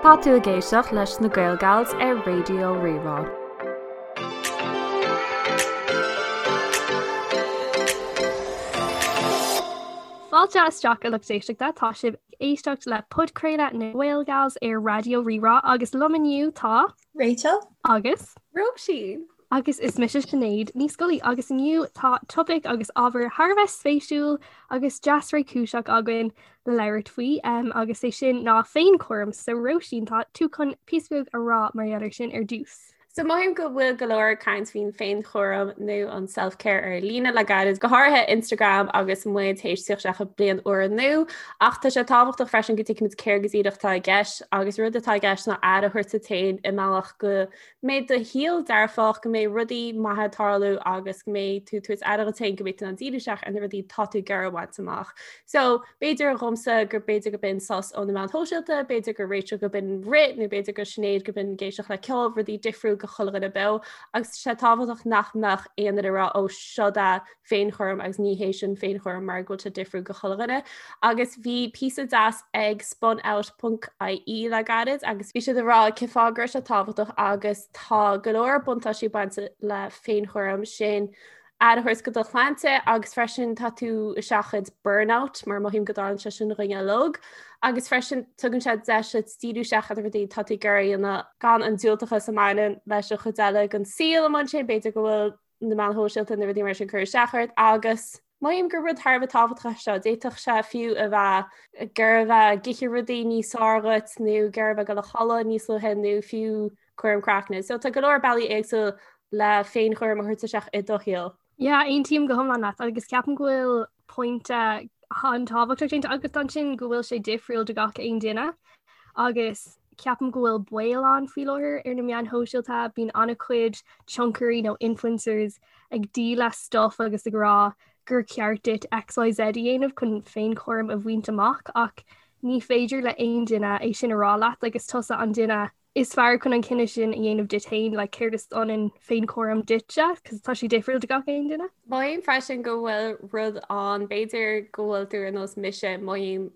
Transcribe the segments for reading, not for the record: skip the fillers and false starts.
Tá tú ag éisteacht leis na Gael Gals ar Raidió Rí-Rá. Fáilte isteach a lucht éisteachta, tá sibh ag éisteacht le podchraoladh na Gael Gals ar Raidió Rí-Rá agus liom inniu tá. Rachel. Agus. Róisín. Agus is mise Sinéad Ní Scolaí agus inniu tá topaic agus ábhar thar a bheith spéisiúil agus deas réchúiseach againn le labhairt faoi agus é sin ná féinchúram. So Róisín tá tú chun píosa beag a rá mar gheall air sin ar dtús. So mothaím go bhfuil go leor caint faoin féinchúram nó an self-care ar líne le gairid, go háirithe Instagram agus muid théis tíocht isteach i bliain úr nua, ach tá sé tábhachtach freisin go dtuigfimid céard go díreach atá i gceist agus rud atá i gceist ná aire a thabhairt duit féin i mbealach go mbeidh do shaol dearfach, go mbeidh rudaí maithe ag tarlú agus go mbeidh tú ag tabhairt aire duit féin, go mbeidh tú in ann díriú isteach ar na rudaí atá tú ag iarraidh a bhaint amach. So, b'fhéidir dhomsa gur b'fhéidir go b'in sos ó na meáin shóisialta, b'fhéidir go Rachel go b'in rith nó b'fhéidir go Sinéad go b'in ag éisteacht le ceol, rudaí difriúil go chuile dhuine beo agus tá sé tábhachtach nach mbeadh aon duine ag rá ó seo é féinchúram agus ní hé sin féinchúram mar go bhfuil sé difriúil go chuile dhuine. Agus bhí píosa deas ag spunout.ie le gairid agus bhí siad ag rá cén fáth go raibh sé tábhachtach agus tá go leor buntáistí bainte le féinchúram sin aire a thabhairt go do shláinte agus freisin tá tú ag seachaint burnout mar mothaím go dtarlaíonn sé sin dhuine uilig agus freisin tugann sé deis duit díriú isteach ar na rudaí tá tú ag iarraidh a dhéanamh gan an diúltachas a mbaineann leis an chuid eile den saol amuigh ansin b'fhéidir go bhfuil na meáin shóisialta na rudaí mar sin cur isteach ort agus mothaím gur rud thar a bheith tábhachtach é seo. D'fhéadfadh sé fiú a bheith gur a bheith ag ithe rudaí níos fearr dhuit nó gur a bheith ag dul a chodladh níos luaithe nó fiú cúram craicne. So tá go leor bealaí éagsúil le féinchúram a thabhairt isteach i do shaol. Yeah, aontaím go hiomlán leat agus ceapaim go bhfuil pointe an-tábhachtach déanta agat ansin go bhfuil sé difriúil do gach aon duine agus ceapaim go bhfuil baol ann faoi láthair ar na meáin shóisialta, bíonn an-chuid tionchairí nó influencers ag díol stuff agus ag rá gur ceart duit XYZ a dhéanamh chun féinchúram a bhaint amach ach ní féidir le aon duine é sin a rá leat agus tusa an duine is fearr chun an cinneadh sin a dhéanamh duit féin, like céard is ionann féinchúram duitse, cos tá sé difriúil do gach aon duine. Mothaím freisin go bhfuil rud ann, b'fhéidir go bhfuil tú ar nós mise, mothaím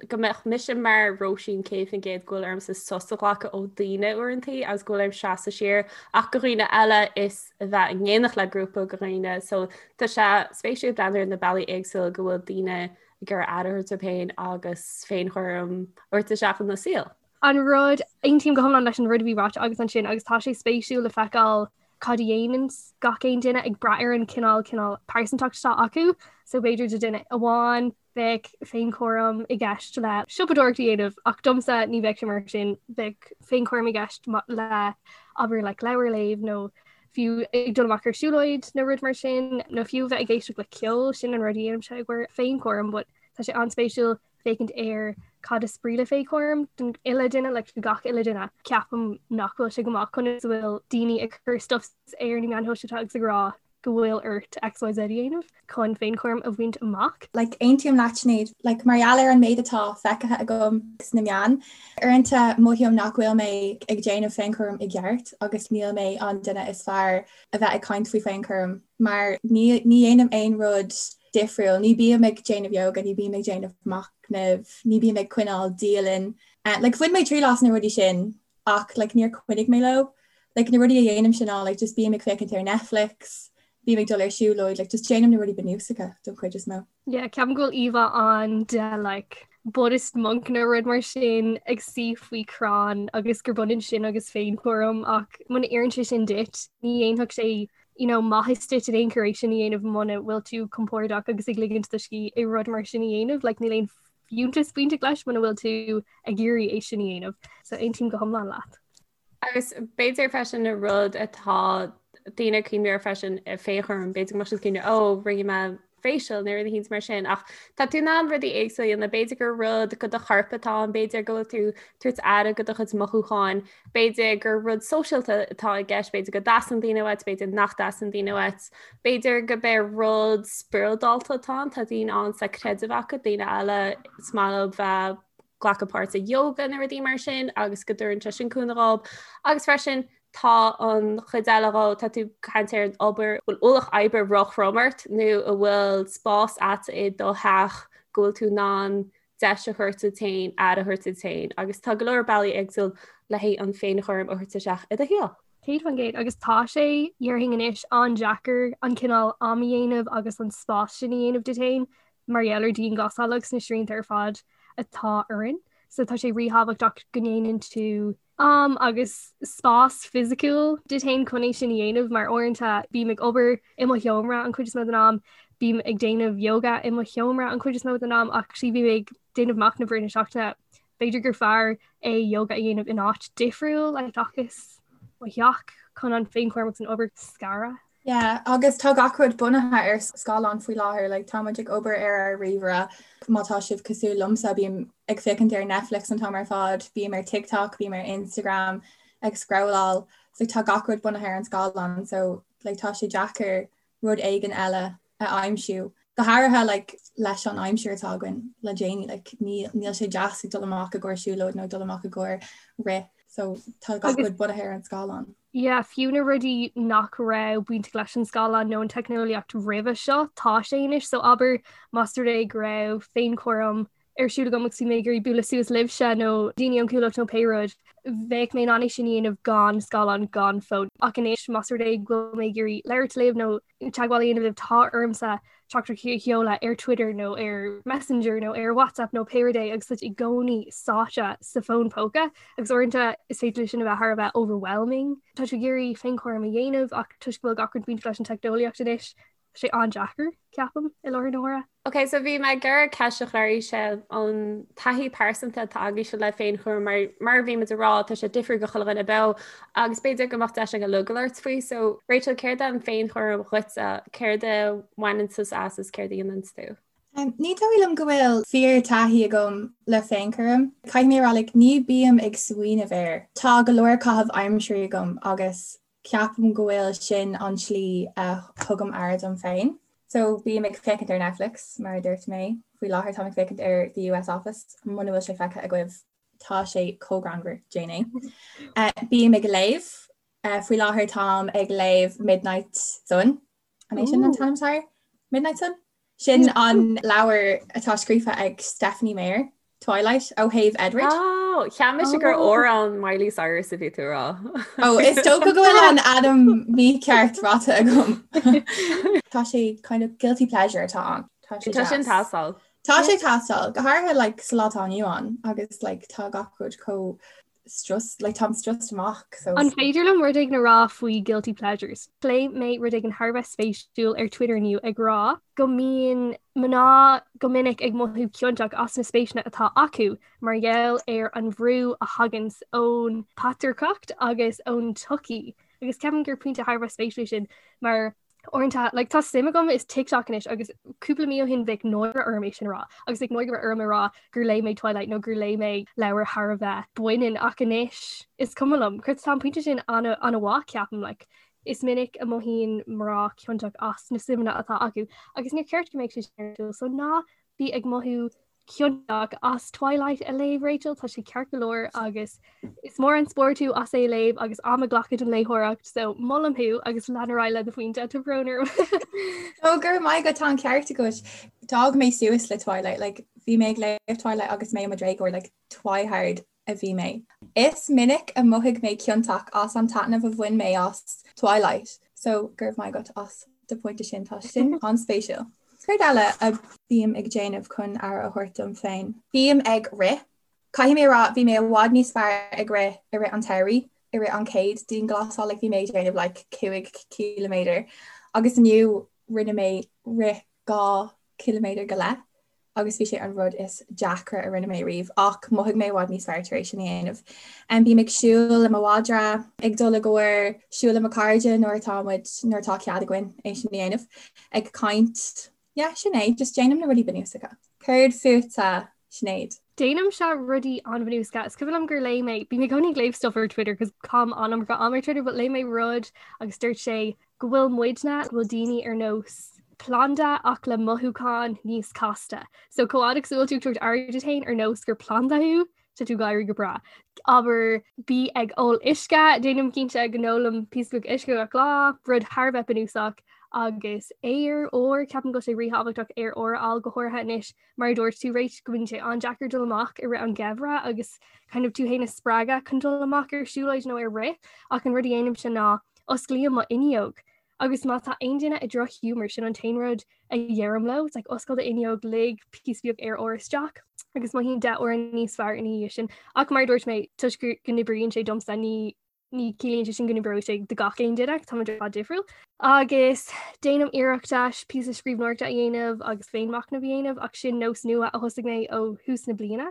go mbeadh mise mar Róisín 100% go bhfuil ormsa sos a ghlacadh ó daoine uaireantaí agus go bhfuil orm seasamh siar ach go dhaoine eile is a bheith in éineacht le grúpa go dhaoine so tá sé spéisiúil breathnú ar na bealaí éagsúla go bhfuil daoine ag iarraidh aire a thabhairt dóibh féin agus féinchúram a thabhairt isteach ina saol. An rud, aontaím go hiomlán leis an rud a bhí ráite agat ansin agus tá sé spéisiúil le feiceáil cad a dhéanann gach aon duine ag brath ar an cineál cineál pearsantacht atá acu. So b'fhéidir do duine amháin bheadh féinchúram i gceist le siopadóireacht a dhéanamh ach domsa ní bheadh sé mar sin, bheadh féinchúram i gceist le abair like leabhar a léamh nó fiú ag dul amach ar siúlóid nó rud mar sin nó fiú bheith ag éisteacht le ceol, sin an rud a dhéanaimse i gcomhair féinchúram but tá sé an-spéisiúil féachaint ar cad is brí le féinchúram don uile duine, like do gach uile duine. Ceapaim nach bhfuil sé go maith conas a bhfuil daoine ag cur stuff ar na meáin shóisialta agus ag rá go bhfuil ort XYZ a dhéanamh chun féinchúram a bhaint amach. Like, aontaím leat Sinéad, like, mar gheall ar an méid atá feicthe agam sna meáin, uaireanta mothaím nach bhfuil mé ag déanamh féinchúram i gceart agus níl mé an duine is fearr a bheith ag caint faoi féinchúram mar ní ní dhéanaim aon rud difriúil. Ní bím ag déanamh yoga, ní bím ag déanamh machnaimh, ní bím ag coinneáil dialann. Like bhain mé triail as na rudaí sin ach like níor choinnigh mé leo. Like na rudaí a dhéanaimse ná like just bím ag féachaint ar Netflix, bím ag dul ar siúlóid, like just déanaim na rudaí bunúsacha don chuid is mó. Yeah, ceapaim go bhfuil íomhá ann de like Buddhist monk nó rud mar sin ag suí faoi chrann agus gur b'ionann sin agus féinchúram ach muna oireann sé sin duit, ní dhéanfadh sé you know, maitheas duit in aon chor é sin a dhéanamh muna bhfuil tú compordach agus ag ligint do scíth i rud mar sin a dhéanamh, like, níl aon fiúntas bainteach leis muna bhfuil tú ag iarraidh é sin a dhéanamh. So aontaím go hiomlán leat. Agus b'fhéidir freisin an rud atá daoine ag cuimhneamh air freisin féinchúram, b'fhéidir go mbeadh siad ag cuimhneamh ó rinne mé facial nó rud éicint mar sin ach tá tú in ann rudaí éagsúla a dhéanamh, b'fhéidir gur rud go do chorp atá ann, b'fhéidir go bhfuil tú tabhairt aire go do chuid mothúcháin, b'fhéidir gur rud sóisialta atá i gceist, b'fhéidir go dteastaíonn daoine uait, b'fhéidir nach dteastaíonn daoine uait, b'fhéidir go b'é rud spioradálta atá ann, tá daoine ann sa creideamh acu, daoine eile is maith leo bheith glacadh páirt i yoga nó rudaí mar sin agus go dtabharann sé sin cúnamh dhóibh agus freisin tá an chuid eile dhó, tá tú ag caint ar an obair, bhfuil ualach oibre róthrom ort nó an bhfuil spás agat i do theach go bhfuil tú in ann. deis a thabhairt duit féin, aire a thabhairt duit féin agus tá go leor bealaí éagsúil le haghaidh an féinchúram a thabhairt isteach i do shaol. 100% agus tá sé, dhéarfainn anois, an-deacair an cineál am a dhéanamh agus an spás sin a dhéanamh duit féin mar gheall ar dianghlasáil agus na srianta ar fad atá orainn. So tá sé ríthábhachtach go ndéanann tú am agus spás fisiciúil duit féin chun é sin a dhéanamh mar uaireanta bím ag obair i mo sheomra an chuid is mó den am, bím ag déanamh yoga i mo sheomra an chuid is mó den am ach actually bhí mé ag déanamh machnamh i rith na seachtaine b'fhéidir gur fearr é yoga a dhéanamh in áit difriúil like seachas mo theach chun an féinchúram agus an obair a scaradh. Yeah, agus tá gach rud bunaithe ar scáileán faoi láthair, like tá muid ag obair ar ár ríomhaire, má tá sibh cosúil liomsa bím ag féachaint ar Netflix an t-am ar fad, bím ar TikTok, bím ar Instagram ag scrolláil, so tá gach rud bunaithe ar an scáileán so like tá sé deacair rud éigin eile a aimsiú. Go háirithe like leis an aimsir atá againn le déanaí, like níl níl sé deas ag dul amach i gcomhair siúlóid nó dul amach i gcomhair rith so tá gach rud bunaithe ar an scáileán. Yeah, fiú na rudaí nach raibh bainteach leis an scáileán nó an teicneolaíocht roimhe seo, tá sé anois, so abair más rud é go raibh féinchúram ar siúl agam agus bhí mé ag iarraidh bualadh suas libhse nó daoine ón Chuallacht nó pé rud, bheadh mé in ann é sin a dhéanamh gan scáileán, gan fón. Ach anois más rud é go bhfuil mé ag iarraidh labhairt libh nó teagmháil a dhéanamh libh, tá ormsa teachtaireacht a sheoladh ar Twitter nó ar Messenger nó ar WhatsApp nó pé rud é agus tá i gcónaí sáite sa fón póca agus uaireanta is féidir leis sin a bheith thar a bheith overwhelming. Tá tú ag iarraidh féinchúram a dhéanamh ach toisc go bhfuil gach rud bainteach leis an teicneolaíocht anois, tá sé an-deacair, ceapaim, i láthair na huaire. Ok, so bhí mé ag iarraidh ceist a chur oraibhse an taithí pearsanta atá agaibhse le féinchúram mar mar a bhí muid ag rá tá sé difriúil do chuile dhuine beo agus b'fhéidir go mbeadh deis againn uilig labhairt faoi. So Rachel, céard é an féinchúram dhuitse? Céard a bhaineann tusa as is céard a dhéanann tú? Um, ní dóigh liom go bhfuil fíor taithí agam le féinchúram. Caithfidh mé a rá like, ní bím ag smaoineamh air. Tá go leor caitheamh aimsire agam agus Ceapaim go bhfuil sin an tslí a thugaim aire dom féin. So bím ag féachaint ar Netflix, mar a dúirt mé. Faoi láthair táim ag féachaint ar The US Office, muna bhfuil sé feicthe agaibh tá sé chomh greannmhar, déan é. Bím ag léamh. Faoi láthair táim ag léamh Midnight Sun. An é sin an t-ainm atá air? Midnight Sun? Sin an leabhar atá scríofa ag Stephenie Meyer, Twilight, ó thaobh Edward. Oh, cheap mise gur amhrán Miley Cyrus a bhí tú a rá. Oh, is dócha go bhfuil an ainm mícheart ráite agam. Tá sé kind of guilty pleasure atá ann. Tá sé Tá sin teastáil. Tá sé teastáil, go háirithe like, sa lá atá inniu ann agus like, tá gach rud chomh strus, like táim stressed amach so. An féidir liom rud éigin a rá faoi guilty pleasures? Léigh mé rud éigin thar a bheith spéisiúil ar Twitter inniu ag rá go mbíonn mná go minic ag mothú ciontach as na spéiseanna atá acu mar gheall ar an bhrú a thaganns ón patrarcacht agus ón tsochaí. Agus ceapaim gur pointe thar a bheith spéisiúil é sin mar Uaireanta, like, tá suim agam i TikTok anois agus cúpla mí ó shin bheadh náire orm é sin a rá agus bheadh náire orm a rá gur léigh mé Twilight nó gur léigh mé leabhar thar a bheith baineann ach anois is cuma liom. Cos tá an pointe sin an-mhaith ceapaim, like, is minic a mothaíonn mná ciontach as na suimeanna atá acu agus níor cheart go mbeadh sé sin ar siúl so ná bí ag mothú ciontach as Twilight a léamh Rachel, tá sé ceart go leor agus is mór an spórt thú as é a léamh agus am a ghlacadh don léitheoireacht so molaim thú agus lean ar aghaidh le do phointe tá brón orm. Ó go raibh maith agat tá an ceart agat. D'fhás mé suas le Twilight, like, bhí mé ag léamh Twilight agus mé i mo dhéagóir like, Twihard a bhí mé. Is minic a mhothaigh mé ciontach as an taitneamh a bhain mé as Twilight, so go raibh maith agat as do phointe sin, tá sin an-spéisiúil. Céard eile a bím ag déanamh chun aire a thabhairt dom féin? Bím ag rith. Caithfidh mé a rá, bhí mé i bhfad níos fearr ag rith i rith an tsamhraidh, i rith an chéad dianghlasáil, like bhí mé ag déanamh like 5 ciliméadar agus inniu rinne mé rith 2 ciliméadar go leith. agus bhí sé an rud is deacra a rinne mé riamh ach mhothaigh mé i bhfad níos fearr tar éis sin a dhéanamh. Bím ag siúl le mo mhadra, ag dul i gcomhair siúl le mo chairde nuair atá muid, nuair atá cead againn é sin a dhéanamh, ag caint. Yeah, sin é, just déanaim na rudaí bunúsacha. Céard fútsa, Sinéad? Déanaimse rudaí an-bhunúsacha. Is cuimhin liom gur léigh mé, bím i gcónaí ag léamh stuff ar Twitter cos caithim an-iomarca am ar Twitter, but léigh mé rud agus dúirt sé go bhfuil muidne, go bhfuil daoine ar nós planda ach le mothúcháin níos casta. So chomh fhada agus a bhfuil tú ag tabhairt aire duit féin ar nós gur planda thú, tá tú ag éirí go breá. Abair bí ag ól uisce, déanaim cinnte go n-ólaim píosa beag uisce gach lá, rud thar a bheith bunúsach. Agus aer úr, ceapaim go bhfuil sé ríthábhachtach aer úr a fháil go háirithe anois mar a dúirt tú Rach go mbíonn sé an-deacair dul amach i rith an gheimhridh agus kind of tú féin a spreagadh chun dul amach ar siúlóid nó ar rith ach an rud a dhéanaimse ná osclaím mo fhuinneog agus má tá aon duine i drochghiúmar sin an t-aon rud a dheirim leo, it's like oscail do fhuinneog lig píosa beag aer úr isteach agus mothaím 10 uair níos fearr ina dhiaidh sin. Ach mar a dúirt mé toisc go n-oibríonn sé domsa ní ní ciallaíonn sé sin go n-oibreoidh sé do gach aon duine, táimid ar fad difriúil. Agus déanaim iarracht píosa scríbhneoireachta a dhéanamh agus féinmhachnamh a dhéanamh ach sin nós nua a thosaigh mé ó thús na bliana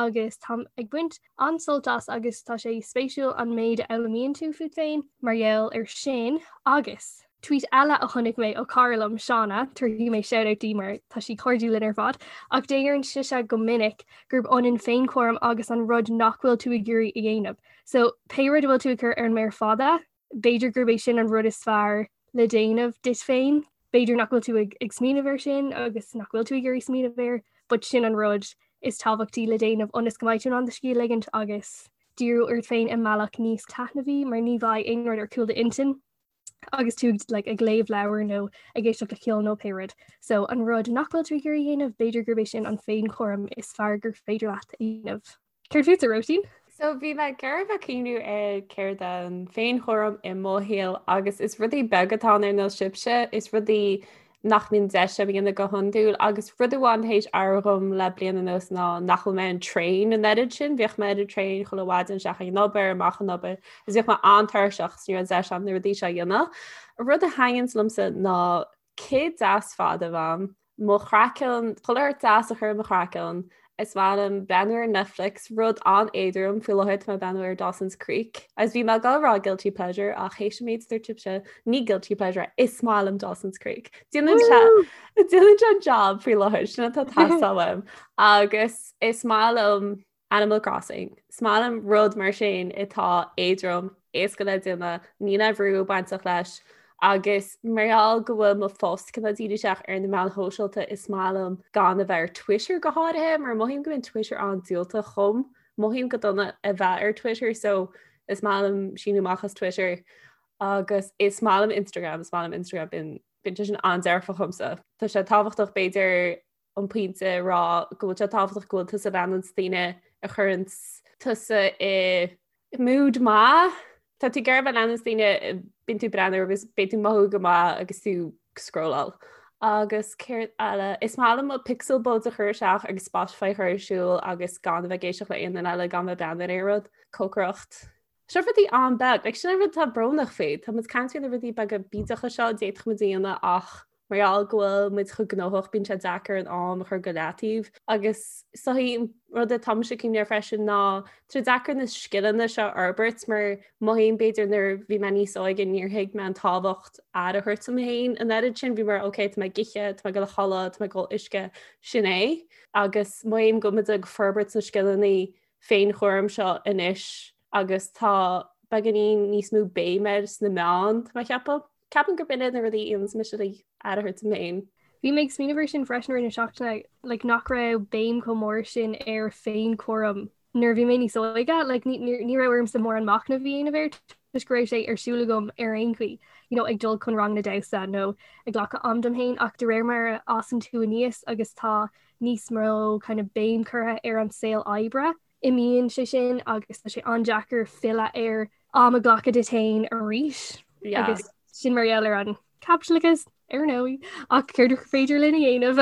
agus táim ag baint an-sult as agus tá sé spéisiúil an méid a fhoghlaimíonn tú fút féin mar gheall ar sin agus. Tweet eile a chonaic mé ó cara liom, Shauna, tabharfaidh mé shout-out di mar tá sí cairdiúil linn ar fad, ach deireann sise go minic gurb ionann féinchúram agus an rud nach bhfuil tú ag iarraidh a dhéanamh. So pé rud a bhfuil tú ag cur ar an méar fada, b'fhéidir gurb é sin an rud is fearr le déanamh duit féin. B'fhéidir nach bhfuil tú ag, ag smaoineamh air sin agus nach bhfuil tú ag iarraidh smaoineamh air, but sin an rud is tábhachtaí le déanamh ionas go mbeidh tú in ann do scíth a ligint agus díriú ort féin i mbealach níos taitneamhaí mar ní bheidh aon rud ar chúl d'intinn agus tú like, ag léamh leabhar nó ag éisteacht le ceol nó pé rud. So an rud nach bhfuil tú ag iarraidh a dhéanamh, b'fhéidir gurb é sin an féinchúram is fearr gur féidir leat a dhéanamh. Céard fútsa, Róisín? So bhí mé ag iarraidh bheith ag cuimhniú ar céard an féinchúram i mo shaol agus is rudaí beaga atá ann ar nós sibhse, is rudaí nach mbíonn deis agam a dhéanamh go hiondúil agus rud amháin théis athrú dhom le bliain anuas ná nach bhfuil mé ar an traein an oiread sin, bhíodh mé ar an traein chuile mhaidin isteach ag an obair, amach ón obair agus bhíodh mé an-tuirseach 's ní raibh deis agam na rudaí seo a dhéanamh. Rud a thaitníonns liomsa ná cith deas fada a bheith a'm, mo chraiceann, chuile shórt deas a chur ar mo chraiceann. Is maith liom breathnú ar Netflix, rud an-éadrom faoi láthair tá mé ag breathnú ar Dawson's Creek. Agus bhí mé ag dul a rá guilty pleasure ach théis an méid a dúirt sibhse, ní guilty pleasure é, is maith liom Dawson's Creek. Déanann sé déanann sé an job faoi láthair, sin atá ag teastáil uaim. Agus is maith liom Animal Crossing. Is maith liom rud mar sin atá éadrom, éasca le déanamh, níl aon bhrú bainteach leis agus mar gheall go bhfuil mo phost cineál dírithe isteach ar na meáin shóisialta is maith liom gan a bheith ar Twitter go háirithe mar mothaím go mbíonn Twitter an-diúltach dhom, mothaím go dona a bheith ar Twitter so is maith liom síniú amach as Twitter agus is maith liom Instagram, is maith liom Instagram bíonn bíonn sé sin an-dearfach dhomsa. Tá sé tábhachtach b'fhéidir an pointe a rá go bhfuil sé tábhachtach go bhfuil tusa ag leanúint daoine a chuireann tusa i mood maith. Tá tú ag iarraidh a bheith ag leanúint daoine bíonn tú breathnú agus beidh tú mothú go maith agus tú scrolláil. Agus céard eile is maith liom mo pixel buds a chur isteach agus Spotify a chur ar siúl agus gan a bheith ag éisteacht le aon duine eile gan bheith breathnú ar aon rud. Cócaireacht. Seo rudaí an-beag, like, sin an rud atá brónach faoi. Tá muid ag caint faoi na rudaí beaga bídeacha seo a d'fhéadfadh muid a dhéanamh ach mar gheall go bhfuil muid chomh gnóthach bíonn sé deacair an am a chur go leataobh. Agus is dóichí an rud atá mise ag cuimhneamh air freisin ná tá sé deacair na scileanna seo a fhorbairt mar mothaím b'fhéidir nuair a bhí mé níos óige níor thuig mé an tábhacht aire a thabhairt dom féin an oiread sin bhí mar ok tá mé ag ithe, tá mé ag dul a chodladh, tá mé ag ól uisce, sin é. Agus mothaím go bhfuil muid ag forbairt na scileanna féinchúram seo anois agus tá beagáinín níos mó béim air sna meáin, tá mé ag ceapadh. Ceapaim gurb in iad na rudaí a dhéananns mise le aire a thabhairt dom féin. Bhí mé ag smaoineamh air sin freisin i rith na seachtaine, like, nach raibh béim chomh mór sin ar féinchúram nuair a bhí mé níos óige, like, ní, ní, ní raibh ormsa mórán machnamh a dhéanamh air toisc go raibh sé ar siúl agam ar aon chaoi, you know, ag dul chun ranganna damhsa nó ag glacadh am dom féin ach de réir mar a fhásann tú aníos agus tá níos mó kind of béim curtha ar an saol oibre, imíonn sé sin agus tá sé an-deacair filleadh ar am a ghlacadh duit féin arís. Yeah. Agus sin mar gheall ar an caipitleachas ar ndóigh ach céard is féidir linn a dhéanamh.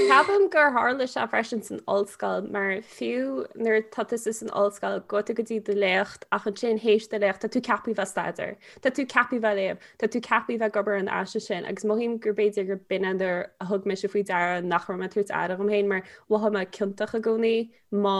Ceapaim gur tharla sé freisin san ollscoil mar fiú nuair tá tusa san ollscoil gabhann tú go dtí do léacht ach ansin théis do léacht tá tú ceaptha bheith ag staidéar, Tá tú ceaptha bheith ag léamh, tá tú ceaptha bheith ag obair ar an aiste sin agus mothaím gur b'fhéidir gur b'in é nuair a thug mise faoi deara nach raibh mé ag tabhairt aire dhom féin mar mhothaigh mé ciontach i gcónaí má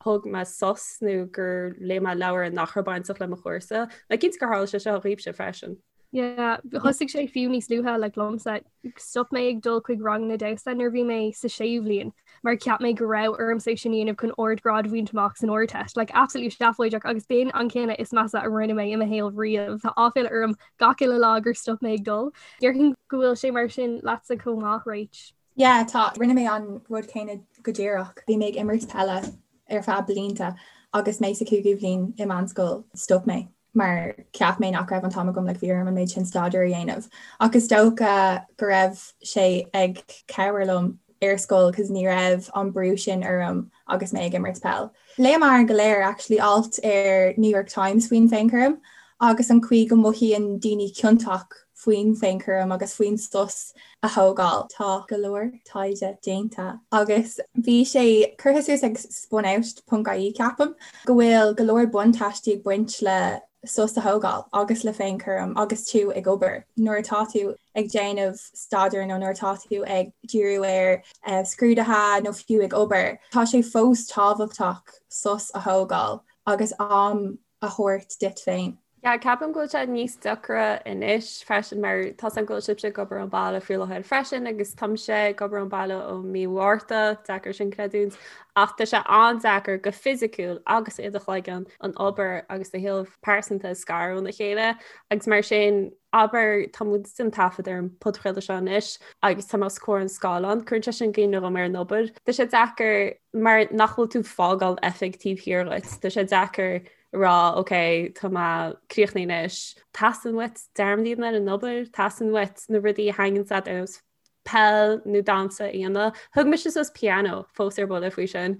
thóg mé sos nó gur léigh mé leabhar nach raibh bainteach le mo chúrsa. Mé cinnte gur tharla sé seo dhaoibhse freisin. Yeah, thosaigh sé fiú níos luaithe like liomsa. Stop mé ag dul chuig ranganna damhsa nuair a bhí mé sa séú bhliain mar cheap mé go raibh ormsa é sin a dhéanamh chun ardghrád a bhaint amach san Ardteist. Like absolutely seafóideach agus b'in an cinneadh is measa a rinne mé i mo shaol riamh. Tá áiféala orm gach uile lá gur stop mé ag dul. Déarfainn go bhfuil sé mar sin leatsa chomh maith, Rach. Yeah, tá. Rinne mé an rud céanna go díreach. Bhí mé ag imirt peile ar feadh blianta agus mé sa cúigiú bhliain i meánscoil, stop mé. Mar cheap mé nach raibh an t-am agam like bhí orm an méid sin staidéir a dhéanamh. Ach is dócha go raibh sé ag cabhair liom ar scoil cos ní raibh an brú sin orm agus mé ag imirt peil. Léamar go léir actually alt ar New York Times faoin féinchúram agus an chaoi go mothaíonn daoine ciontach faoin féinchúram agus faoin sos a thógáil. Tá go leor taighde déanta agus bhí sé curtha suas ag spunout ponc ie ceapaim, go bhfuil go leor buntáistí ag baint le sos a thógáil agus le féinchúram agus tú ag obair. Nuair atá tú ag déanamh staidéir nó nuair atá tú ag díriú ar scrúduithe nó fiú ag obair, tá sé fós tábhachtach sos a thógáil agus am a thabhairt duit féin. Yeah, ceapaim go bhfuil sé níos deacra anois freisin mar tá a fhios agam go bhfuil sibhse ag obair ón baile faoi láthair freisin agus táimse ag obair ón baile ó mí Mhárta, deacair sin creidiúint, ach tá sé an-deacair go fisiciúil agus i do chloigeann an obair agus do shaol pearsanta a scaradh óna chéile agus mar sin abair tá muid ag déanamh taifead ar an podchraoladh seo anois agus tá mé os comhair an scáileán, cuireann sé sin i gcuimhne dhom ar an obair. Tá sé deacair mar nach bhfuil tú ag fágáil oifig taobh thiar dhuit. Tá sé deacair rá ok tá mé críochnaithe anois. Teastaíonn uait dearmad a dhéanamh ar an obair, teastaíonn uait na rudaí a thaitníonn leat ar nós peil nó damhsa a dhéanamh. Thug mise suas pianó fós ar buile faoi sin.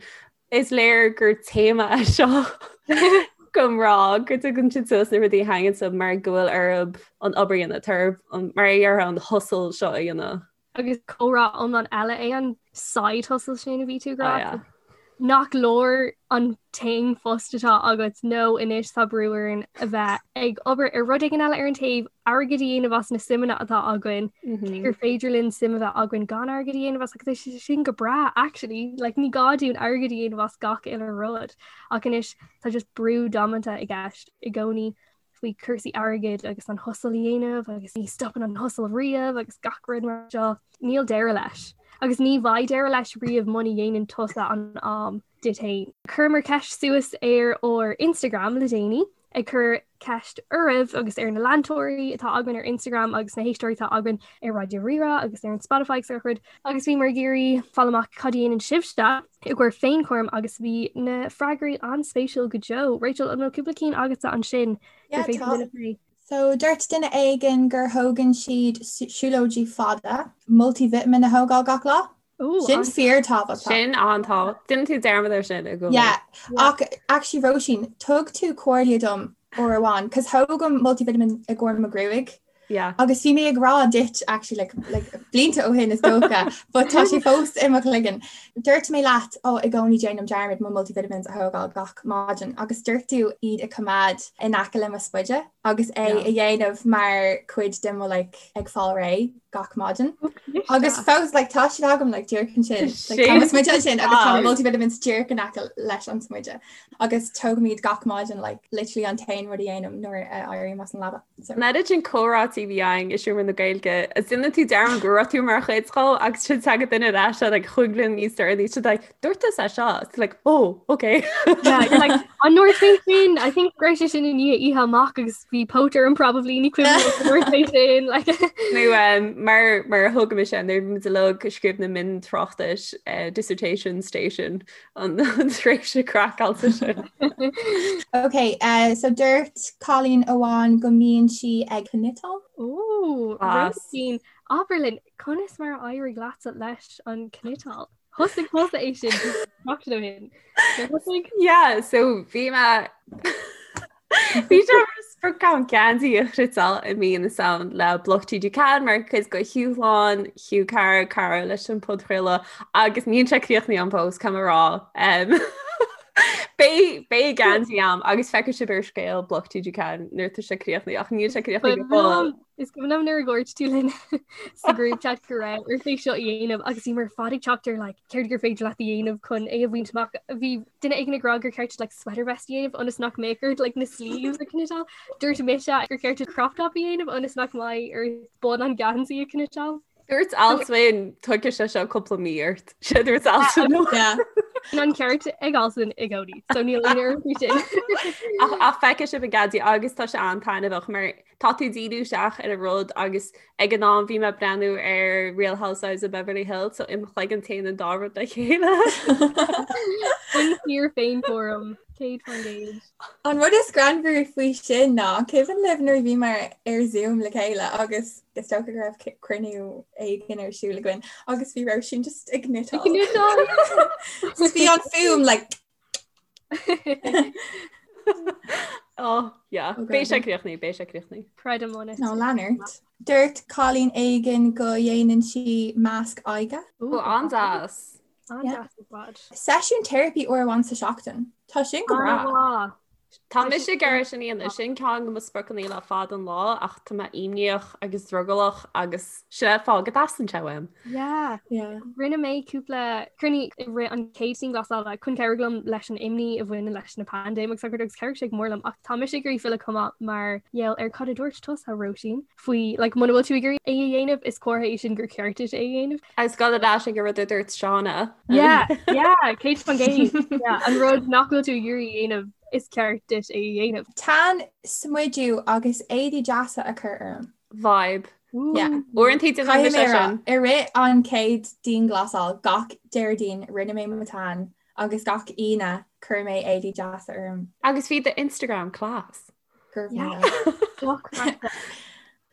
Is léir gur téama é seo do mhná go dtugann siad suas na rudaí a thaitníonn leo mar go bhfuil orthu an obair a dhéanamh, tá orthu mar a déarfá an hustle seo a dhéanamh. Agus comhrá iomlán eile é an side hustle sin a bhí tú ag rá. Oh, yeah. Nach leor an t-aon phost atá agat nó anois tá brú orainn a bheith ag obair ar rud éigin eile ar an taobh, airgead a dhéanamh as na suimeanna atá againn, mm -hmm. gur féidir linn suim a bheith againn gan airgead a dhéanamh as agus tá sé sin go breá actually, like, ní gá dúinn airgead a dhéanamh as gach uile rud ach anois tá just brú damanta i gceist i gcónaí faoi cúrsaí airgid agus an hustle a dhéanamh agus ní stopann an hustle riamh agus gach rud mar seo. Níl deireadh leis. Agus ní bheidh deireadh leis riamh muna dhéanann tusa an am duit féin. Chuireamar ceist suas ar ár Instagram le déanaí ag cur ceist oraibh agus ar na leantóirí atá againn ar Instagram agus na héisteoirí atá againn ar Raidió Rí-Rá agus ar an Spotify agus gach rud agus bhíomar ag iarraidh fáil amach cad a dhéanann sibhse i gcomhair féinchúram agus bhí na freagraí an-spéisiúil go deo. Rachel, an bhfuil cúpla cinn agatsa ansin gur féidir linn a phlé? So dúirt duine éigin gur thógann siad siúlóidí fada, multivitamin a thógáil gach lá. Sin fíor tábhachtach. Sin an-tábhachtach. Déanann tú dearmad ar sin i gcónaí. Yeah. Ach actually Róisín, thug tú comhairle dom uair amháin, cos thógaim multivitamin i gcomhair mo ghruaig. Yeah. Agus bhí mé ag rá duit actually like, like, blianta ó shin is dócha, but tá sé fós i mo chloigeann. Dúirt mé leat ó i gcónaí déanaim dearmad mo multivitamins a thógáil gach maidin agus dúirt tú iad a choimeád in aice le mo spuide agus é a dhéanamh mar chuid de mo like, ag fáil réidh gach maidin. Agus fós like, tá siad agam like, díreach ansin like, tá mo smuide ansin agus tá multivitamins díreach in aice leis an smuide. Agus tógaim iad gach maidin like, literally an t-aon rud a dhéanaim nuair a éirím as an leaba. So. An oiread sin comhráití a bhí againn i seomra na Gaeilge, is déanann tú dearmad go raibh tú mar chuid dhó agus sin tagann duine ar ais like, chúig bliana níos deireanaí siad like, dúirt tusa é seo It's like oh okay Yeah, you're like an ndúirt mé sin I think go raibh sé sin i ndiaidh oíche amach agus bhí póit orm probably ní cuimhin liom an ndúirt mé sin like Nó um, mar mar a thug mise nuair muid uilig ag scríobh na miontráchtais uh, dissertation station an an tréimhse craiceáilte sin. Ok, uh, so dúirt cailín amháin go mbíonn sí ag cniotáil? Ó, Róisín, abair linn, conas mar a éirigh leatsa leis an cniotáil? Thosaigh tusa é sin seachtain ó shin. Thosaigh? Yeah, so bhí mé Bhí sé mar sprioc agam geansaí a chniotáil i mí na Samhna le Bloc TG4 mar chuid de dhúshlán Hugh Cara cara leis an podchraoladh agus níl sé críochnaithe agam fós caithfidh mé a rá. Um, Beidh beidh geansaí agam agus feicfidh sibh ar scéal Bloc TG4 nuair atá sé críochnaithe ach níl sé críochnaithe go fóill. Is cuimhin liom nuair a dhúirt tú linn sa group chat go raibh ort é seo a dhéanamh agus bhíomar ar fad ag teacht ar like, céard gur féidir leat a dhéanamh chun é a bhaint amach. Bhí duine éigin ag rá gur ceart like, sweater vest a dhéanamh ionas nach mbeadh ort like, na sleeves a chniotáil. Dúirt mise gur ceart crop top a dhéanamh ionas nach mbeidh ort bun an geansaí a chniotáil. Dúirt Alswyn tógfaidh sé seo cúpla mí ort. Sé dúirt Alswyn. Bíonn an ceart ag Alswyn i gcónaí, so níl aon urraim faoi sin. Ach ach feicfidh sibh an geansaí agus tá sé an-taitneamhach mar tá tú díriú isteach ar an rud agus ag an am bhí mé ag breathnú ar Real Housewives of Beverly Hills so im chloigeann téann an dá rud le chéile. Sin fíor féinchúram. 100%. An rud is greannmhaire faoi sin ná, cuimhin libh nuair a bhíomar ar Zoom le chéile agus is dócha go raibh cruinniú éigin ar siúl againn agus bhí Róisín just ag cniotáil. Ag cniotáil! Bhí an fuaim like Oh, yeah. Beidh sé críochnaithe, beidh sé críochnaithe. Creidim ionat. Nó lean ort. Dúirt cailín éigin go dhéanann sí masc aghaidhe. Ó, an-deas. An-deas ar fad. Seisiún teiripí uair amháin sa seachtain. Tá sin go breá. An-mhaith. Tá mise ag iarraidh sin a dhéanamh. Sin ceann de mo spriocanna le fada an lá ach tá mé imníoch agus drogallach agus sin é an fáth go dteastaíonn sé uaim. Yeah. Yeah. Rinne mé cúpla cruinniú i rith an chéad dianghlasála chun cabhrú liom leis an imní a bhaineann leis na paindéim agus agus chabhraigh sé go mór liom ach tá mise ag iarraidh filleadh chomh maith mar gheall ar cad a dúirt tusa Róisín faoi like muna bhfuil tú ag iarraidh é a dhéanamh is comhartha é sin gur ceart duit é a dhéanamh. Agus gabh ar ais ag an rud a dúirt Shauna. Yeah, yeah, 100%. Yeah, an rud nach bhfuil tú ag iarraidh a dhéanamh is ceart duit é a dhéanamh. Tan, smidiú agus éadaí deasa a chur orm. Vibe. Yeah. Uaireanta déanaim Caithfidh mise mé a rá, sin. i rith an chéad dianghlasáil gach Déardaoin rinne mé mo tan agus gach Aoine chuir mé éadaí deasa orm. Agus bhí do Instagram class.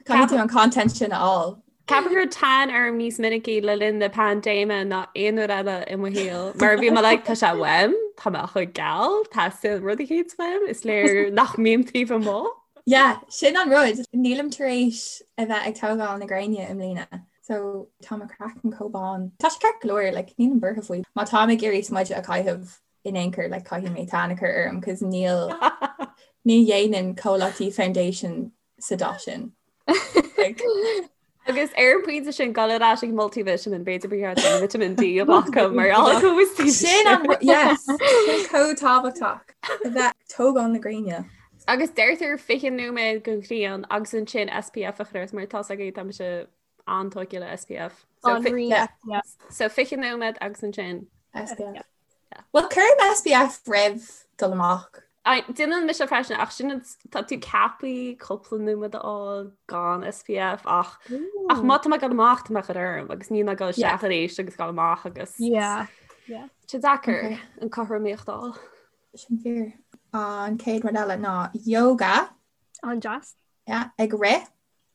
Caithfidh tú an content sin a fháil. Ceapaim go raibh tan orm níos minicí le linn na paindéime ná aon uair eile i mo shaol. Mar bhí mé like tá sé uaim, tá mé chomh geal, teastaíonn rud eicínt uaim, is léir nach mbím taobh amuigh. Yeah, sin an rud. Nílim tar éis a bheith ag tógáil na gréine i mbliana. So tá mo chraiceann chomh bán. Tá sé ceart go leor, like, nílim buartha faoi. Má táim ag iarraidh smideadh a chaitheamh in aon chor like caithfidh mé tan a chur orm cos níl ní dhéanann comhlachtaí foundation sa dath sin. Like, Agus ar an bpointe sin gabh ar ais ag multivitamin b'fhéidir ba cheart dom vitamin D a ghlacadh mar gheall Sin an yes, sin chomh tábhachtach a bheith ag tógáil na gréine. Agus deirtear 20 nóiméad den ghrian agus ansin SPF a chur ort mar tá a fhios agaibh tá mise an-tógtha le SPF. So, An rí yeah. SPF. so 20 nóiméad agus ansin SPF. Well cuirim SPF roimh dul amach. Déanann mise freisin ach sin tá tú ceaptha cúpla nóiméad a fháil gan SPF ach ach má tá mé ag dul amach tá mé á chur orm agus níl mé ag dul isteach arís agus dul amach agus Yeah. Yeah. Tá sé deacair an cothromaíocht a fháil. Sin fíor. An chéad rud eile ná yoga. An-deas. Yeah, ag rith.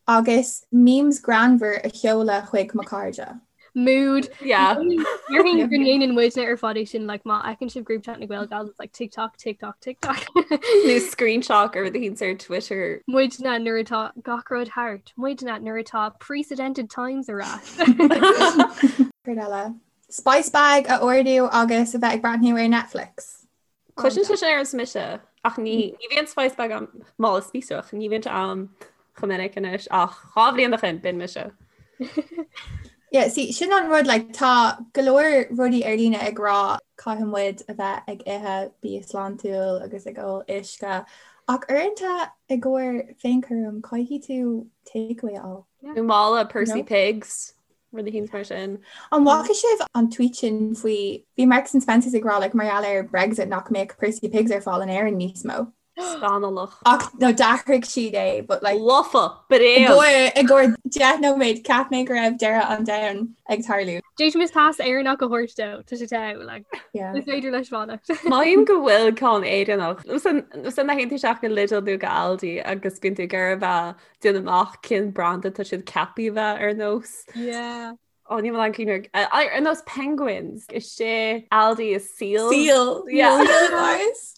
Agus memes greannmhar a sheoladh chuig mo chairde. Mood. Yeah. Déarfainn go ndéanann muidne ar fad é sin like má fheiceann sibh group chat na Gael Gals it's like TikTok, TikTok, TikTok. Nó screenshot ar rud eicínt ar Twitter. Muidne nuair atá gach rud thart, muidne nuair atá precedented times ar ais. Céard eile? Spice bag a ordú agus a bheith ag breathnú ar Netflix. Cliseann sé sin ar nós mise ach ní ní bhíonn spice bag agam mála spíosrach, ní bhíonn sé agam chomh minic anois ach 2 bhliain ó shin b'in mise. Yeah, see, sin an rud, like, tá go leor rudaí ar líne ag rá caithfidh muid a bheith ag ithe bia sláintiúil agus ag ól uisce ach uaireanta i gcomhair féinchúram caithfidh tú takeaway a fháil. Nó mála Percy Pigs. Rud eicínt mar sin. An bhfaca sibh an tweet sin faoi, bhí Marks and Spencers ag rá like mar gheall ar Brexit nach mbeadh Percy Pigs ar fáil in Éirinn níos mó. Scannalach. Ach no d'athraigh siad é but like Lofa! Bréag! I gcomhair 10 nóiméad cheap mé go raibh deireadh an domhain ag tarlú. D'fhéadfaimis pas Éireannach a thabhairt dó, tá sé togha, like, Yeah. is féidir leis fanacht. Mothaím go bhfuil ceann Éireannach. Nó san a théann tú isteach go Lidl nó go Aldi agus bíonn tú ag iarraidh a bheith déanamh amach cén branda tá siad ceaptha a bheith ar nós. Yeah. Ó ní an cuimhin ar nós Penguins is é Aldi is Seal. Seal. Yeah. Nice.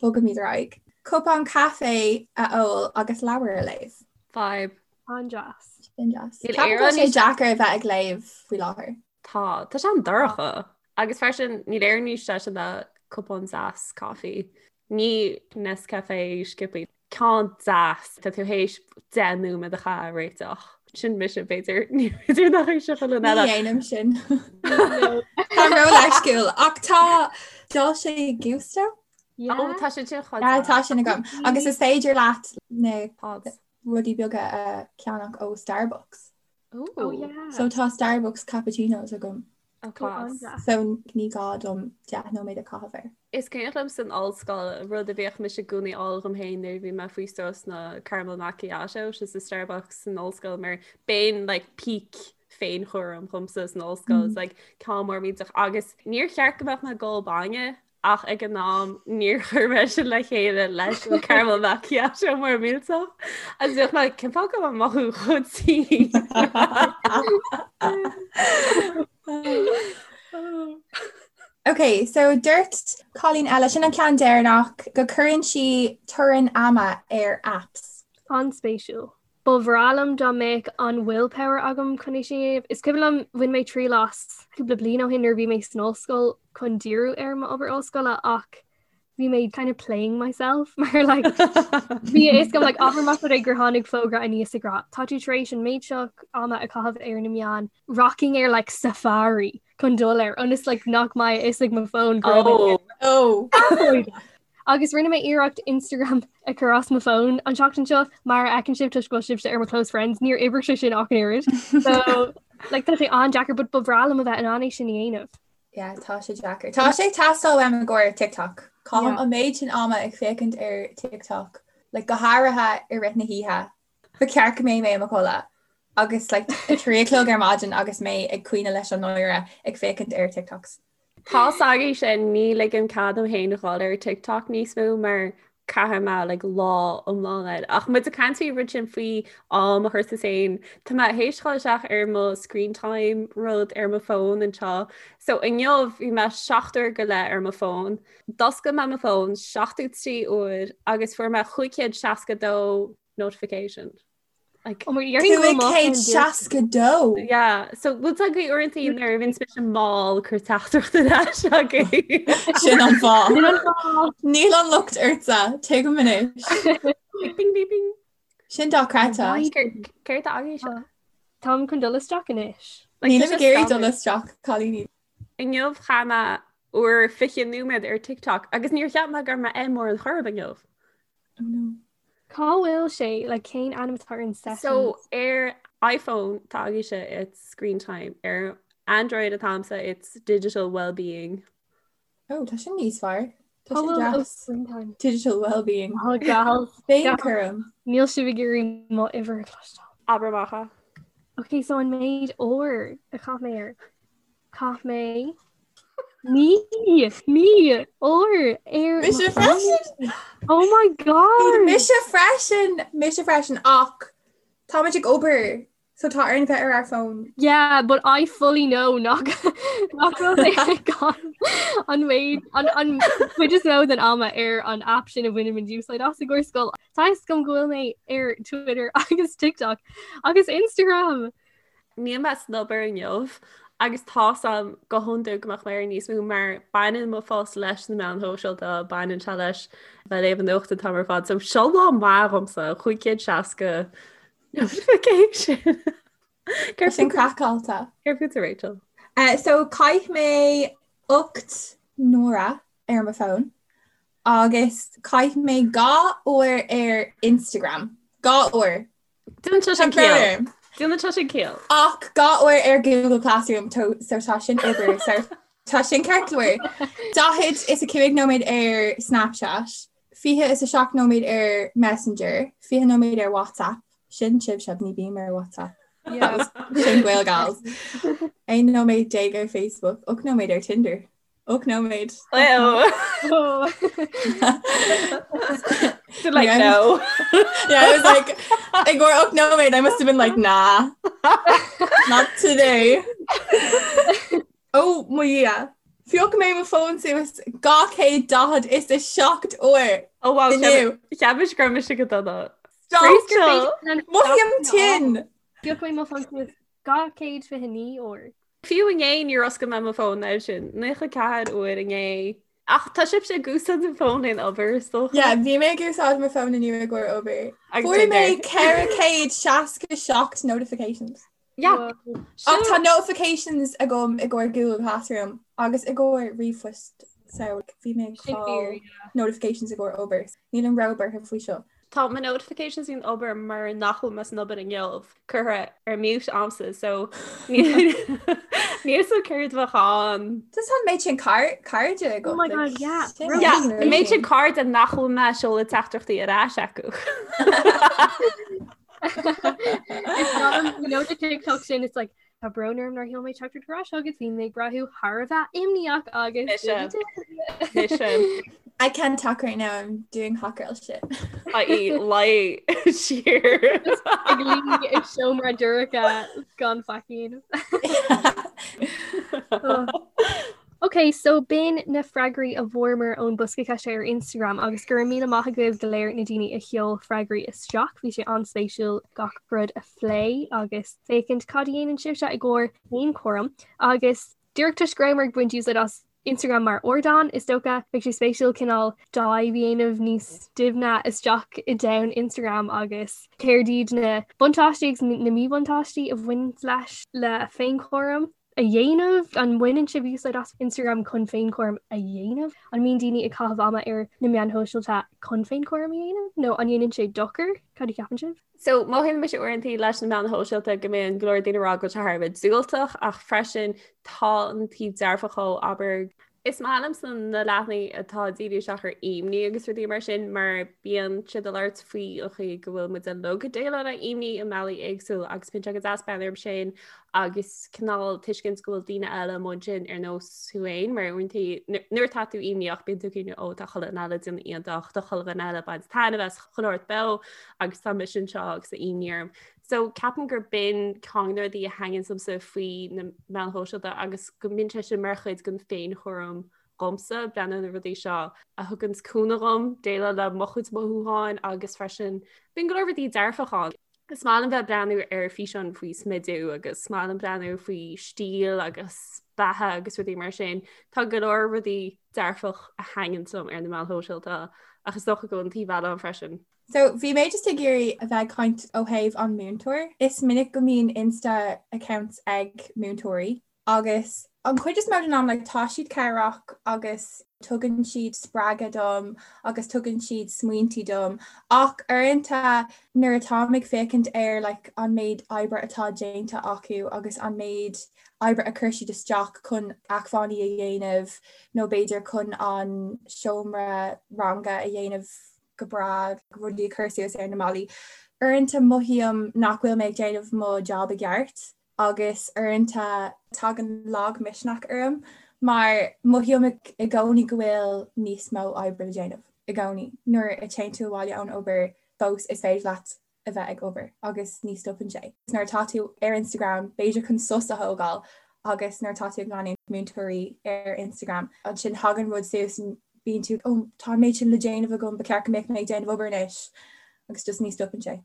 Bogaimid ar aghaidh. Cupán caife a ól agus leabhar a léamh. Vibe. An-deas. Sin deas. Níl Ceapaim go Éire bhfuil sé níos- deacair a bheith ag léamh faoi láthair. Tá tá sé an-dorcha. Agus freisin níl Éire níos deise ná cupán deas coffee. Ní Nescafe sciobtha. Ceann deas, tá tú théis 10 nóiméad a chaitheamh á réiteach. Sin mise b'fhéidir, ní féidir nach é seo chuile Ní eile. dhéanaim sin. Tá ró-leisciúil ach tá Dolce Gusto? Ó tá sé sin chomh Yeah, deas. tá sin agam. Agus is féidir leat na Pods. rudaí beaga a cheannach ó Starbucks. Oh yeah. So tá Starbucks cappuccinos agam. Oh, class. So ní gá dom 10 nóiméad a chaitheamh air. Is cuimhin liom san ollscoil rud a bhíodh mise i gcónaí a fháil dhom féin nuair a bhí mé faoi strus ná caramel macchiato sa Starbucks san ollscoil mar b'in like peak féinchúram dhomsa san ollscoil mm. like ceann mór millteach agus níor cheart go mbeadh mé ag ól bainne. Ach ag an am níor chuir mé sin le chéile leis an caramel macchiato mór millteach. Agus bhíodh mé cén fáth go bhfuil mé ag mothú chomh tinn. Ok, so dúirt cailín eile sin an ceann deireanach go cuireann sí teorainn ama ar apps. An-spéisiúil. Ba bhreá liom dá mbeadh an willpower agam chun é sin a dhéanamh. Is cuimhin liom bhain mé triail as cúpla bliain ó shin nuair a bhí mé san ollscoil chun díriú ar m'obair ollscoile ach bhí mé kind of playing myself mar like bhí a fhios agam like abair más rud é gur tháinig fógra aníos ag rá tá tú tar éis an méid seo ama a chaitheamh ar na meáin rachainn ar like Safari chun dul air ionas like nach mbeidh a fhios ag mo fón go raibh mé Oh. Oh. Agus rinne mé iarracht Instagram a chur as mo fón an tseachtain seo mar a fheiceann sibh toisc go bhfuil sibhse ar mo close friends níor oibrigh sé sin ach an oiread. So like tá sé an-deacair but ba bhreá liom a bheith in ann é sin a dhéanamh. Yeah, tá sé deacair. Tá sé ag teastáil uaim i gcomhair TikTok. Caithim Yeah. an méid sin ama ag féachaint ar TikTok, like go háirithe i rith na hoíche. Ba cheart go mbeidh mé i mo chodladh agus like 3 a chlog ar maidin agus mé ag caoineadh leis an náire ag féachaint ar TikToks. Tá s'agaibh sin ní ligim cead dom féin a dhul ar TikTok níos mó mar caithfidh mé like lá iomlán air. Ach muid ag caint faoi rud sin faoi am a chur sa féin. Tá mé théis dhul isteach ar mo screen time rud ar mo fón anseo. So inniu bhí mé 7 uair go leith ar mo fón. D'oscail mé mo fón 73 uair agus fuair mé 562 notification. Like, Oh my 562? Yeah, so bhfuil a fhios agaibh uaireanta nuair a bhíonn mise mall cuir teachtaireacht ar ais agaibh. Sin an fáth. Sin an fáth. Níl an locht ortsa, tuigim anois. Bing bing bing. Sin dochreidte. Céard atá agaibh seo? Táim chun dul isteach anois. Nílim ag iarraidh dul isteach, cailíní. Inniu chaith mé uair 20 nóiméad ar TikTok agus níor cheap mé go raibh mé air mórán chor ar bith inniu. Oh no. Cá bhfuil sé like cén ainm atá ar an sessions? So ar iPhone tá agaibhse it's screen time, ar Android atáimse it's digital well-being. Oh, tá sin níos fearr. Tá Cá sin bhfuil oh, deas. screen time? Digital well-being. Oh, gals. Féinchúram. Níl sibh ag iarraidh mo uimhir a chloisteáil. Abair amach é. Ok, so an méid uair a chaith mé air. Chaith mé 9 uair ar Mise freisin! Oh my god! Mise freisin! Mise freisin ach táimid ag obair so tá orainn bheith ar ár bhfón. Yeah, but I fully know nach nach bhfuil mé ag caitheamh an méid an an chuid is mó den ama ar an app sin a bhainimid úsáid as i gcomhair scoil. Tá a fhios agam go bhfuil mé ar Twitter agus TikTok agus Instagram. Níl mé san obair inniu agus tá 's a'm go hiondúil go mbeadh mé ar níos mó mar baineann mo phost leis na meáin shóisialta, baineann sé leis bheith ag léamh an nuacht an t-am ar fad. So seo lá maith dhomsa, 560 notification. Céard sin craiceáilte. Céard fútsa Rachel? Uh, so chaith mé 8 n-uaire ar mo fón agus chaith mé 2 uair ar Instagram. 2 uair. Déanann sé sin ciall. Déanann sé sin ciall. Ach 2 uair ar Google Classroom so tá sin obair so tá sin ceart go leor. 45 nóiméad ar Snapchat, 27 nóiméad ar Messenger, 20 nóiméad ar WhatsApp, sin sibhse ní bím ar WhatsApp. Sin Gaelgals. 11 nóiméad ar Facebook, 8 nóiméad ar Tinder. 8 nóiméad. Did like no. Yeah, I was like I go 8 nóiméad, I must have been like nah. Not today. Oh mo Dhia. Phioc mé mo fón suas 247 uair. Oh wow, Inniu. Cheap mise go raibh mise go dona. Stop. Rachel! Mothaím tinn. Phioc mé mo fón suas 229 uair. Fiú inné níor oscail mé mo fón air sin, 94 uair inné. Ach tá sibhse ag úsáid an fón in obair is dócha. Yeah, bhí mé ag úsáid mo fón inniu i gcomhair obair. Agus Fuair mé Tinder. 467 notifications. Yeah. Ach tá notifications agam i gcomhair Google Classroom agus i gcomhair ríomhphost so bhí mé ag Sin fáil fíor, yeah. notifications i gcomhair obair. Nílim róbhuartha faoi seo. Tá mo notifications in obair mar nach bhfuil mé san obair inniu curtha ar mute a'msa so níl fhios a'm céard a bheadh ann. Just an méid sin cairde agat. Oh my god, yeah. Yeah, an méid sin cairde nach bhfuil mé ag seoladh teachtaireachtaí ar ais acu. It's not, you know the TikTok sin, it's like, Tá brón orm nár sheol mé teachtaireacht ar ais agus bhí mé ag brath thar a bheith imníoch agus Mise. I can't talk right now, I'm doing hot girl shit. I.e. luí siar. Ag luí i seomra dorcha gan faic. Ok, so b'in na freagraí a bhfuaireamar ón bosca ceiste ar Instagram agus go raibh míle maith agaibh go léir na daoine a sheol freagraí isteach. Bhí sé an-spéisiúil gach rud a phlé agus féachaint cad a dhéanann sibhse i gcomhair féinchúram agus díreach toisc go rabhamar ag baint úsáid as Instagram mar ardán, is dócha, beidh sé spéisiúil cineál dive a dhéanamh níos doimhne isteach i domhan Instagram agus céard iad na buntáistí agus na míbhuntáistí a bhaineann leis le féinchúram. a dhéanamh? An mbaineann sibh úsáid as Instagram chun féinchúram a dhéanamh? An mbíonn daoine ag caitheamh ama ar na meáin shóisialta chun féinchúram a dhéanamh? Nó an ndéanann sé dochar? Cad a cheapann sibh? So, mothaíonn mise uaireanta leis na meáin shóisialta go mbíonn go leor daoine ag rá go bhfuil sé thar a bheith diúltach ach freisin tá an taobh dearfach dhó, abair, Is maith liomsa na leathanaigh atá ag díriú isteach ar imní agus rudaí mar sin mar bíonn siad ag labhairt faoi an chaoi go bhfuil muid uilig ag déileáil le imní i mbealaí éagsúla agus bíonn sé go deas breathnú orthu sin agus cineál tuiscint go bhfuil daoine eile amuigh ansin ar nós thú féin mar uaireanta nuair atá tú imníoch bíonn tú ag cuimhneamh ó tá chuile dhuine eile ag déanamh iontach tá chuile dhuine eile ag baint taitneamh as chuile shórt beo agus tá mise anseo agus tá imní orm. So ceapaim gur b'in ceann de na rudaí a thaitníonn liomsa faoi na meáin shóisialta agus go mbíonn sé sin mar chuid den féinchúram dhomsa, breathnú ar na rudaí seo a thugann cúnamh dhom déileáil le mo chuid mothúcháin agus freisin bíonn go leor rudaí dearfach ann. Is maith liom bheith ag breathnú ar físeáin faoi smidiú agus is maith liom breathnú faoi stíl agus beatha agus rudaí mar sin. Tá go leor rudaí dearfach a thaitníonn liom ar na meáin shóisialta ach is dócha go bhfuil an taobh eile ann freisin. So bhí mé just ag iarraidh a bheith ag caint ó thaobh an múinteoir. Is minic go mbíonn Insta accounts ag múinteoirí agus an chuid is mó den am like tá siad cabhrach agus tugann siad spreagadh dom agus tugann siad smaointí dom ach uaireanta nuair atáim ag féachaint ar like an méid oibre atá déanta acu agus an méid oibre a chuir siad isteach chun acmhainní a dhéanamh nó b'fhéidir chun an seomra ranga a dhéanamh go breá, rudaí a chur suas ar na ballaí. Uaireanta mothaím nach bhfuil mé ag déanamh mo job i gceart agus uaireanta tagann lagmhisneach orm mar mothaím i gcónaí go bhfuil níos mó oibre le déanamh i gcónaí. Nuair a théann tú abhaile ón obair fós is féidir leat a bheith ag obair agus ní stopann sé. Nuair atá tú ar Instagram b'fhéidir chun sos a thógáil agus nuair atá tú ag leanúint múinteoirí ar Instagram ansin tagann rud suas bíonn tú oh tá an méid sin le déanamh agam ba cheart go mbeadh mé ag déanamh obair anois agus just ní stopann sé.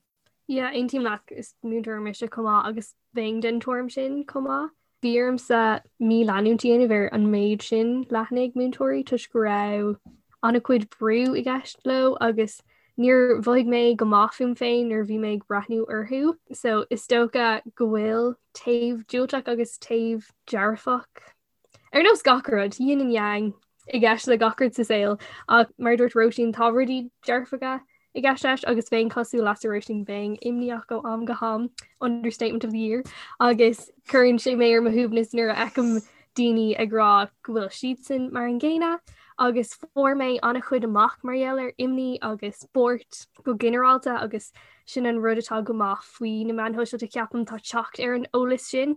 Yeah, aontaím leat is múinteoir mise chomh maith agus bheinn den tuairim sin chomh maith. Bhí ormsa míleanúint a dhéanamh ar an méid sin leathanaigh múinteoirí toisc go raibh an-chuid brú i gceist leo agus níor mhothaigh mé go maith fúm féin nuair a bhí mé ag breathnú orthu. So is dócha go bhfuil taobh diúltach agus taobh dearfach Ar nós gach rud, yin and yang i gceist le gach rud sa saol, ach mar a dúirt Róisín, tá rudaí dearfacha i gceist leis agus bheinn cosúil leatsa Róisín, bheinn imníoch ó am go ham, understatement of the year, agus cuireann sé mé ar mo shuaimhneas nuair a fheicim daoine ag rá go bhfuil siadsan mar an gcéanna agus fuair mé an-chuid amach mar gheall ar imní agus buairt go ginearálta agus sin an rud atá go maith faoi na meáin shóisialta ceapaim tá teacht ar an eolas sin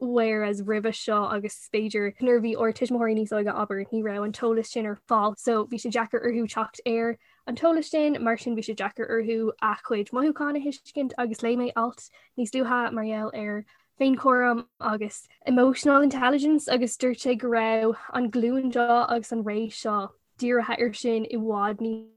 whereas roimhe seo agus b'fhéidir nuair a bhí ár tuismitheoirí níos óige abair ní raibh an t-eolas sin ar fáil so bhí sé deacair orthu teacht ar an t-eolas sin mar sin bhí sé deacair orthu a gcuid mothúchán a thuiscint agus léigh mé alt níos luaithe mar gheall ar féinchúram agus emotional intelligence agus dúirt sé go raibh an glúin seo agus an ré seo dírithe ar sin i bhfad níos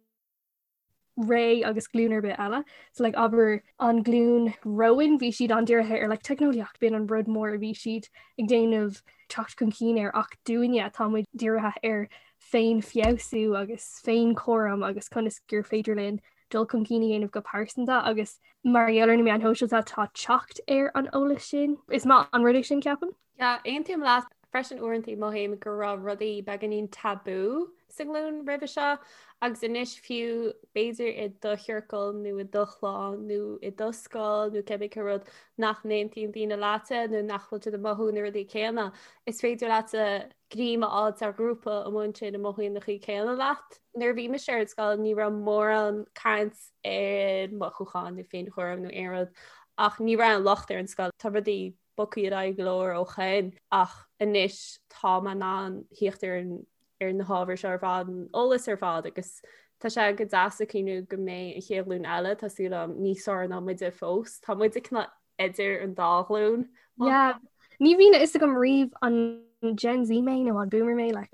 ré agus glúin ar bith eile. So like abair an glúin romhainn bhí siad an-dírithe ar like teicneolaíocht b'in an rud mór a bhí siad ag déanamh teacht chun cinn air ach dúinne tá muid dírithe ar féinfheabhsú agus féinchúram agus conas gur féidir linn dul chun cinn a dhéanamh go pearsanta agus mar gheall ar na meáin shóisialta tá teacht ar an eolas sin. Is maith an rud é sin ceapaim. Yeah, aontaím leat freisin uaireanta mothaím go raibh rudaí beagáinín tabú sa nglúin roimhe seo agus anois fiú b'fhéidir i do chiorcal nó i do chlann nó i do scoil nó cibé cén rud nach n-aontaíonn daoine leatsa nó nach bhfuil siad ag mothú na rudaí céanna, is féidir leatsa greim a fháil ar ghrúpa amuigh ansin a mothaíonn na chaoi céanna leat. Nuair a bhí mise ar an scoil ní raibh mórán caint ar mothúcháin nó féinchúram nó aon rud ach ní raibh an locht ar an scoil. Tá rudaí. bogtha ar aghaidh go leor ó shin ach anois tá mé in ann theacht ar an ar na hábhair seo ar fad, an eolas ar fad agus tá sé go deas ag cuimhniú go mbeidh an chéad ghlúin eile, tá súil agam, níos fearr ná muide fós. Tá muide cineál idir an dá ghlúin. Yeah. Ní bhíonn a fhios agam riamh an Gen Z mé nó an Boomer mé like,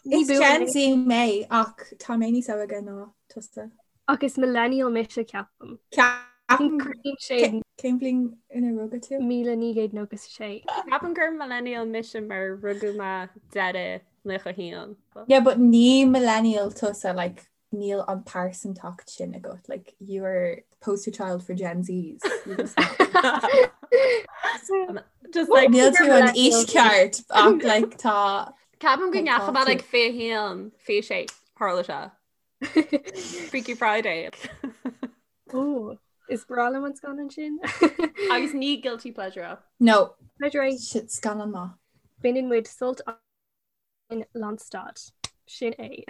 Is Gen Z mé ach tá mé níos óige ná tusa. Ach is millennial mise ceapaim. Ceapaim Cén bhliain ina rugadh tú? 1996. Ceapaim gur millennial mise mar rugadh mé deireadh 91. Yeah, but ní millennial tusa like níl an pearsantacht sin agat like you are poster child for Gen Zs. Just like Níl tú an aois ceart ach like tá Ceapaim go ndeachaigh mé like 21 26 tharla sé. Freaky Friday. Ó, is breá liom an scannán sin. Agus ní guilty pleasure é. No. Pleasure é. Shit scannán maith. Baineann muid sult in lánstad. Sin é.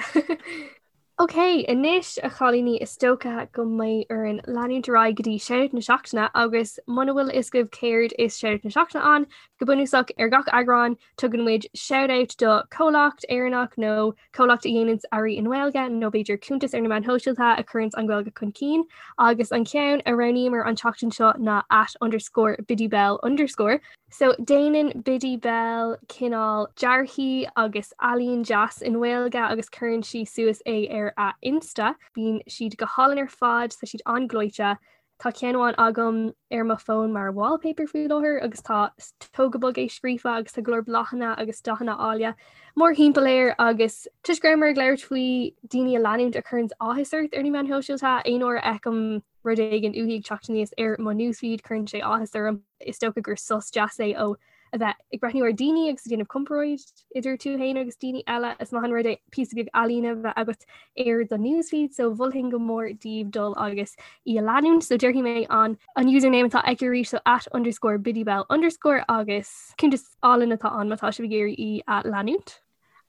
Ok, anois a chailíní is dócha go mbeidh orainn leanúint ar aghaidh go dtí Shoutout na Seachtaine agus muna bhfuil a fhios agaibh céard is Shoutout na Seachtaine ann, go bunúsach ar gach eagrán tugann muid shoutout do chomhlacht Éireannach nó comhlacht a dhéananns earraí i nGaeilge nó b'fhéidir cuntas ar na meáin shóisialta a chuireanns an Ghaeilge chun cinn agus an ceann a roghnaíomar an tseachtain seo ná at underscore biddybell underscore. So déanann Biddy Bell cineál dearthaí agus ealaín deas i nGaeilge agus cuireann sí suas é ar a Insta. Bíonn siad go hálainn ar fad, tá siad an-ghleoite. Tá ceann amháin agam ar mo fón mar wallpaper faoi láthair agus tá tóg go bog é scríofa agus tá go leor bláthanna agus dathanna áille mórthimpeall air agus toisc go rabhamar ag labhairt faoi daoine a leanúint a chuireanns áthas ort ar na meáin shóisialta, aon uair a fheicim rud éigin uaithi ag teacht aníos ar mo newsfeed, cuireann sé áthas orm. Is dócha gur sos deas é ó a bheith ag breathnú ar daoine agus ag déanamh comparáid idir tú féin agus daoine eile. Is maith an rud é píosa beag ealaíne a bheith agat ar do newsfeed, so mholfainn go mór daoibh dul agus í a leanúint. So déarfaidh mé an an username atá aici arís, so at underscore biddybell underscore agus cuntas álainn atá ann má tá sibh ag iarraidh í a leanúint.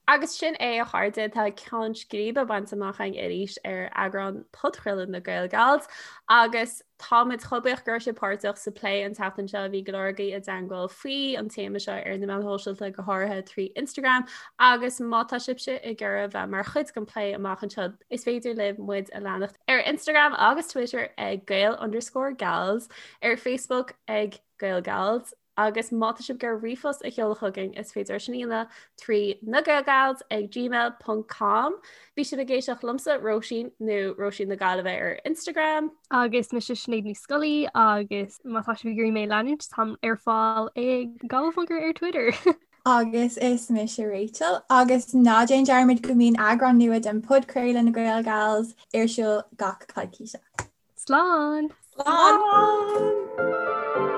Agus sin é a chairde, tá ceann scríbe bainte amach againn arís ar eagrán podchraoladh na Gaelgals agus táimid chomh buíoch go raibh sibh páirteach sa plé an tseachtain seo. Bhí go leor agaibh i dteangmháil faoi an téama seo ar na meáin shóisialta, go háirithe trí Instagram agus má tá sibhse ag iarraidh bheith mar chuid den plé amach anseo, is féidir libh muid a leanacht ar Instagram agus Twitter ag Gael underscore Gals, ar Facebook ag Gaelgals, Agus má tá sibh ag iarraidh ríomhphost a sheoladh chugainn, is féidir sin a dhéanamh trí nagaelgals ag gmail ponc com. Bhí sibh ag éisteacht liomsa, Róisín, nó Róisín na Gaillimhe ar Instagram. Agus mise Sinéad Ní Scolaí agus má tá sibh ag iarraidh mé a leanúint, táim ar fáil ag Gaillmhmonger ar Twitter. Agus is mise Rachel agus ná déan dearmad go mbíonn eagrán nua den podchraoladh na Gaelgals ar siúl gach coicíse. Slán! Slán!